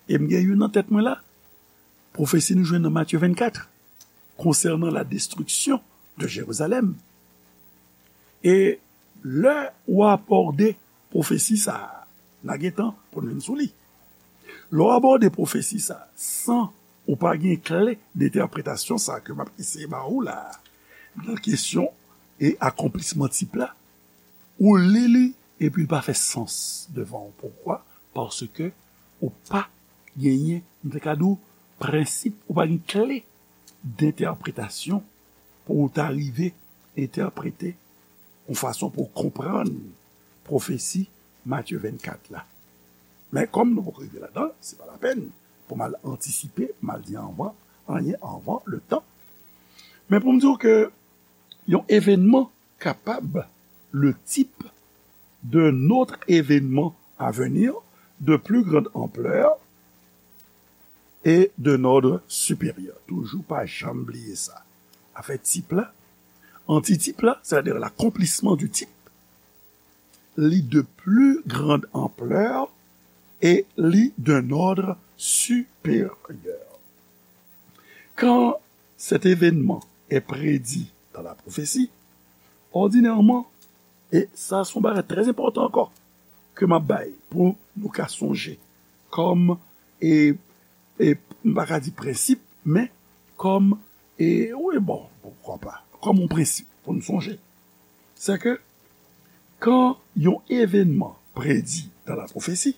E m gen youn nan tèt mwen la, pwofesi nou jwenn nan Matye vennkat, concernant la destruction de Jérusalem. E lè ou abòde pwofesi sa a, n a gen tan pou n vin sou li. Lè w abòde pwofesi sa a san ou pa gen kle de entèpretasyon sa a ke m ap eseye ba ou la a, nan kesyon e akonplisman tip la, ou li li epi l pa fè sans devan w. Poukwa? Paske ou pa genyen, m te ka di w, prensip, ou pa gen kle de entèpretasyon pou w ta rive entèprete yon fason pou w konprann pwofesi Matye vennkat la. Men kòm nou poko rive ladan l, se pa lapèn pou m al antisipe, m al di anvan, anyen anvan le tan. Men pou m di w ke yon evènman capable, le type d'un autre événement à venir de plus grande ampleur et d'un ordre supérieur. Toujou pa janm bliye sa. Afè tip la, antitip la, c'est-à-dire l'accomplissement du type, li de plus grande ampleur et li d'un ordre supérieur. Quand cet événement est prédit dans la prophétie, ordinairement, e sa se yon bagay trè enpòtan ankò ke m ap bay pou nou ka sonje kòm, e, e, m pa ka di prensip, men kòm, e, wi, bon, poukwa pa, kòm yon prensip pou nou sonje. Se ke kan yon evènman predi dans la prophétie,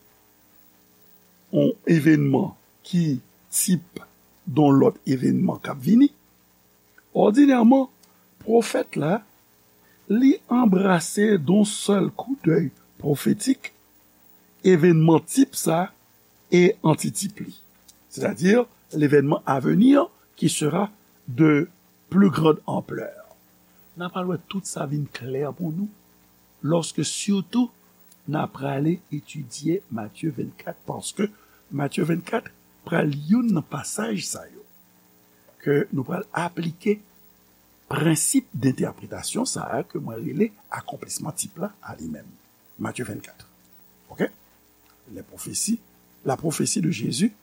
yon evènman ki tip de yon lòt evènman k ap vini, òdinèman, pwofèt la, li anbrase de yon sèl koudèy pwofetik evènman tip sa e antitip li. C'est-à-dire l'événement à venir qui sera de plus grande ampleur. N a pral wè tout sa vin klè pou nou lòske sitou n a prale etidye Matye vennkat, paske Matye vennkat pral youn nan pasaj sa yo ke nou pral aplike prensip dentèpretasyon sa a ke mwen rele akonplisman tip la a li menm. Matye vennkat. Ok? Les prophéties, la prophétie de Jésus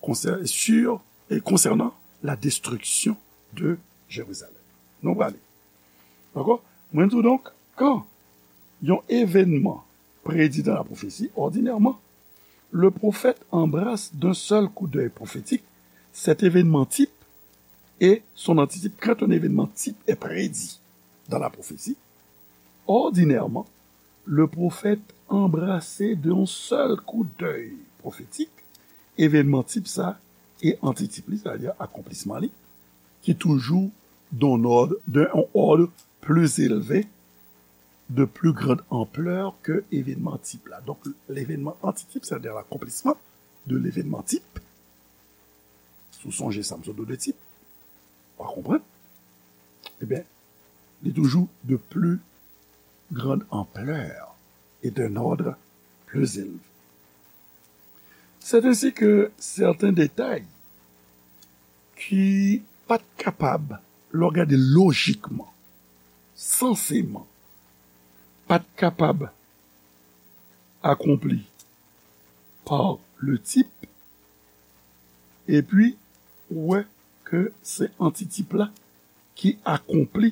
concernant, sur, et concernant la destruction de Jérusalem. Nou prale. Dakò? Mwen di w donk, kan yon evènman prédit dans la prophétie, ordinairement, le prophète embrasse d'un seul coup d'œil prophétique cet événement type et son antitype. Quand un événement type est prédit dans la prophétie, ordinairement, le prophète embrasse d'un seul coup d'œil prophétique événement type sa e antitip li, c'est-à-dire akonplisman li, ki toujou dans un ordre, dans un ordre plus élevé de plus grande ampleur que événement type la. Donk, l'événement antitip, c'est-à-dire l'accomplissement de l'événement type. Si w sonje sa m sot di w de tip, w a konprann. Ebyen, li toujou de plus grande ampleur et d'un ordre plus élevé. C'est ainsi que certains détails ki pa t kapab, lè w gade lojikman, sanseman, pa t kapab akonpli par le type, epi ou wè ke se antitip la ki akonpli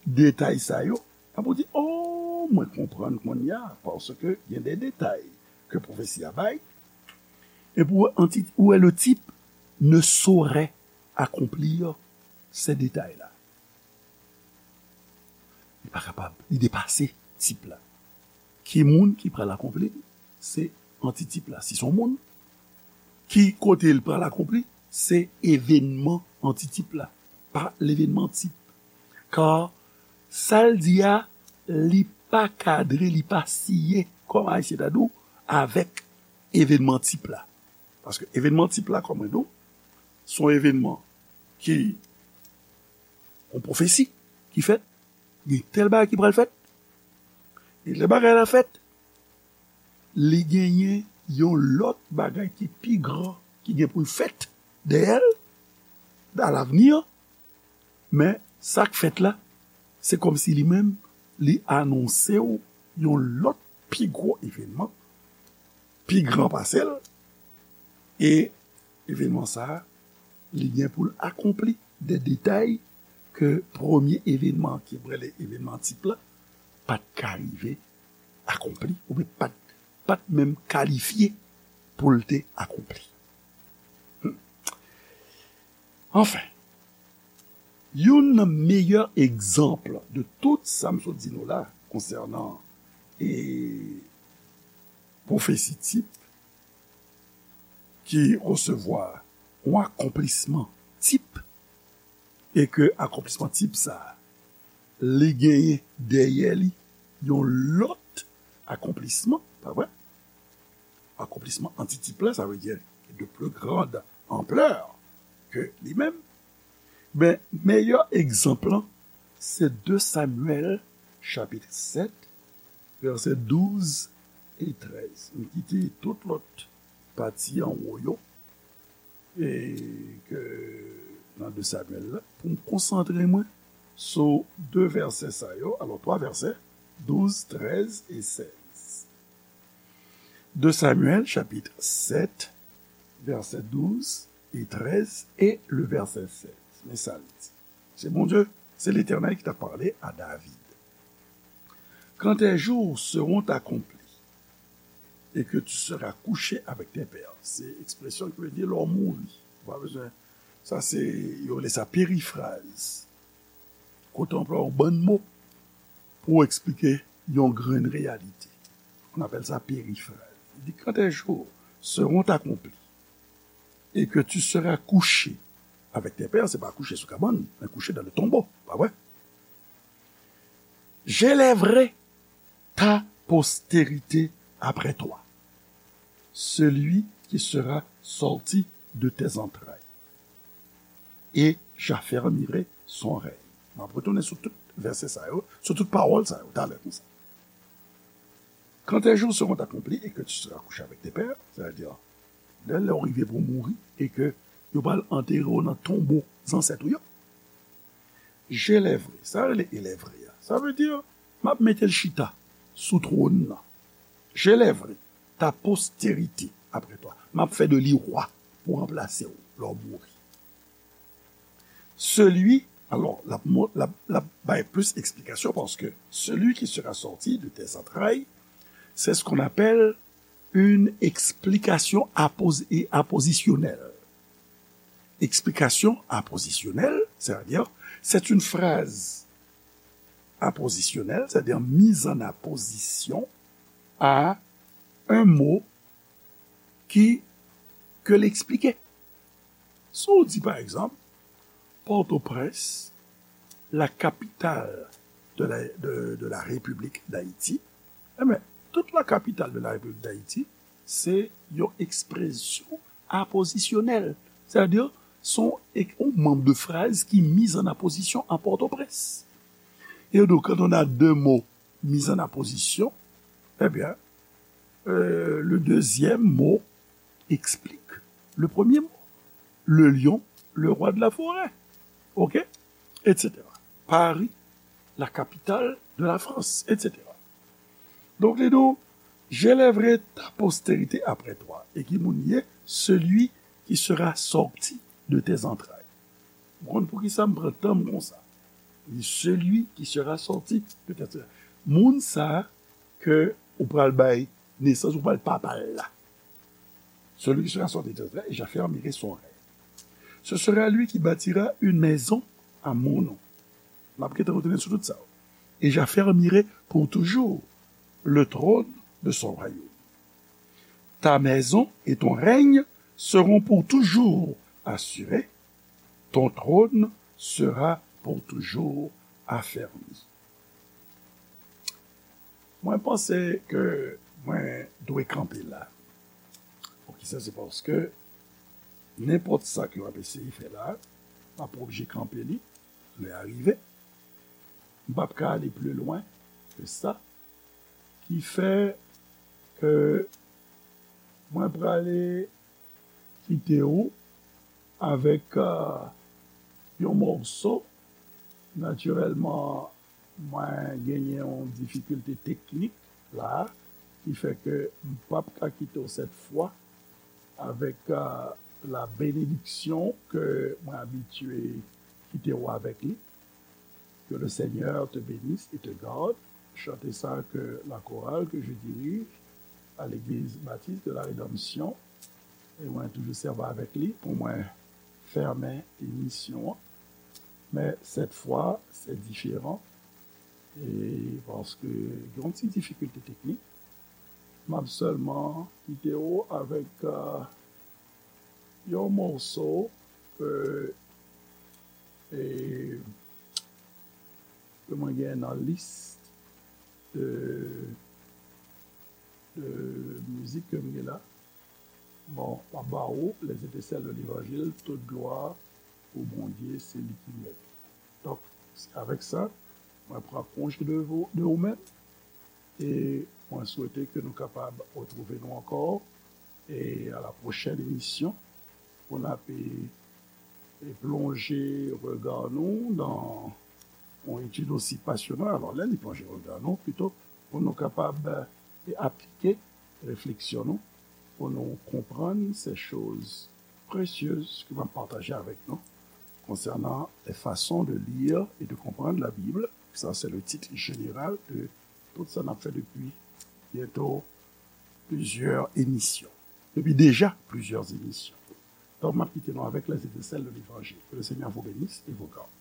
detay sa yo, ap ou di, oh, mwen konprann kounye a, paske gen de detay ke pwofesi a bay, epi ou wè anti-, ou wè le type ne saurait accomplir ces détails-là. Li pa kapab, li depase tip la. Ki moun ki pral akonpli? Se antitip la. Si se yon moun, ki kote l pral akonpli? Se evenman antitip la, pa levenman tip. Kar sa l di a, li pa kadre, li pa siye, kòm Ayisyen ta di w, avèk evenman tip la. Paske evenman tip la, kòm mwen di w, se yon evenman ki, yon pwofesi ki fèt, gen tèl bagay ki pral fèt, e lè bagay la fèt, li genyen yon lòt bagay ki pi gran ki gen pou l fèt dèyè l, dans l'avenir, men sa k fèt la, se kòmsi li menm, li anonse w yon lòt pi gwo evenman, pi gran pase l, e evenman sa a, li gen pou l akonpli de detay ke premye evenman ki rele evenman tip la, pa t ka rive akonpli, oubyen pa t, pa t menm kalifye pou l te akonpli. Hmm. Anfen, youn nan meyè egzanp de tout sa m sot di nou la konsènan, e, pwofesi tip ki resevwa yon akonplisman tip, e ke akonplisman tip sa a, li genyen dèyè li yon lòt akonplisman, pa vre? Akonplisman antitip la, sa vle di de plus grande ampleur ke li menm. Ben, meyè egzanp lan, se de Samyèl, chapit sèt, vèsè douz e trèz. M kite tout lòt pati anwo yo, e ke nan de Samyèl la, pou m konsantre mwen sou de vèsè sa yo, alò, twa vèsè, douz, trèz e sèz. De Samyèl, chapit sèt, vèsè douz e trèz, e le vèsè sèz. Men sa l di. Se Bondye, se Letènèl ki t ap pale a David. Quand tes jours seront accomplis et que tu seras couché avec tes pères. Se ekspresyon ki vle di lè w mouri. Ou pa bezwen. Sa se, yo rele sa perifraz. Kote w anplwaye yon bann mo pou w eksplike yon grenn reyalite. On appelle ça perifraz. Li di, quand tes jours seront accomplis et que tu seras couché avec tes pères, se pa kouche sou kabann, men kouche dans le tombeau, pa vre? J'élèverai ta postérité après toi, celui qui sera sorti de tes entrailles, et j'affermirai son règne. M ap retounen sou tout vèsè sa yo, sou tout pawòl sa yo, talè konsa. Quand tes jours seront accomplis et que tu seras couché avec tes pères, c'est-à-dire, lè, lè w rive pou w mouri, e ke yo pral antere w nan tonbo zansèt ou yo, j'élèverai, sa rele élèverai a. Sa vle di, m ap mete l chita sou twòn nan. J'élèverai ta postérité après toi. M ap fè de li wa pou ranplase w lè w mouri. Celui, alò, l ap mo-, l ap, l ap bay plis eksplikasyon, paske celui qui sera sorti de tes entrailles, c'est ce qu'on appelle une explication apos-, et apposisyonèl. Eksplikasyon apposisyonèl, c'est-à-dire, c'est une phrase apposisyonèl, c'est-à-dire mise en apposition à un mot ki, ke l eksplike. Si w di, pa egzanp, Pòtoprens, la capitale de la, de, de la République d'Haïti, eh ben, toute la capitale de la République d'Haïti, se yon ekspresyon apozisyonèl. Sètadi, se yon, yon manm de fraz ki miz an apozisyon an Pòtoprens. Et donc, quand on a deux mots mis en apposition, eh bien, euh, le deuxième mot explique le premier mot. Le lion, le roi de la forêt. OK? Et cetera. Paris, la capitale de la France, et cetera. Donk, li di w, j'élèverai ta postérité après toi. E ki moun ye? Celui qui sera sorti de tes entrailles. Ou konn poukisa m pran tan m konsa? Li, celui qui sera sorti de tes entrailles. Moun sa ke ou pral bay nesans, ou pral papa l la. Celui qui sera sorti de tes entrailles, et j'affermirai son règne. Ce sera lui qui bâtira une maison à mon nom. N ap gentan retounen sou tout sa. Et j'affermirai pour toujours le trône de son royaume. Ta maison et ton règne seront pour toujours assurés. Ton trône sera pour toujours affermi. Mwen panse ke mwen dwe kanpe la. Poukisa? Se paske nenpòt sa ke w ap eseye fè la, m ap oblije kanpe li lè a rive. M p ap ka ale pli lwen ke sa. Ki fè ke mwen prale kite w avèk, euh, yon mòso. Natirèlman, mwen genyen yon difikilte teknik la, ki fè ke m p ap ka kite w sèt fwa avèk, euh, la benediksyon ke mwen abitye kite w avèk li. Que le Seigneur te bénisse et te garde. Chante sa ke la chorale que je dirige à l'église baptiste de la Rédemption. E mwen toujou sèvi avèk li pou mwen fèmen emisyon an. Men sèt fwa, se diferan. E paske gen yon ti difikilte teknik, m ap sèlman kite w avèk, euh, yon mòso, euh, e, ke mwen gen nan lis de, de mizik ke m gen la. Bon, m ap ba ou, Les Étincelles de l'Évangile, toute gloire pour Bondye, se li ki mèt. Donk, se avèk sa, mwen pran konje de vou, de ou menm, e mwen swete ke nou kapab retwouve nou ankò, e a la pwochèn emisyon, pou n ap, e, e plonje rega nou nan yon etid osi pasyonal. Alò, lè li plonje rega nou, pito pou nou kapab, e, aplike refleksyon nou, pou nou konprann se choz presyez ke m ap pataje avèk nou konsènan les façons de lire et de comprendre la Bible. Ça, c'est le titre général de tout sa n ap fè depi byento plizyè emisyon. Depi deja plizyè emisyon. Donk, m ap kite nou avèk Les Étincelles de l'Évangile. Que le Seigneur vous bénisse et vous garde.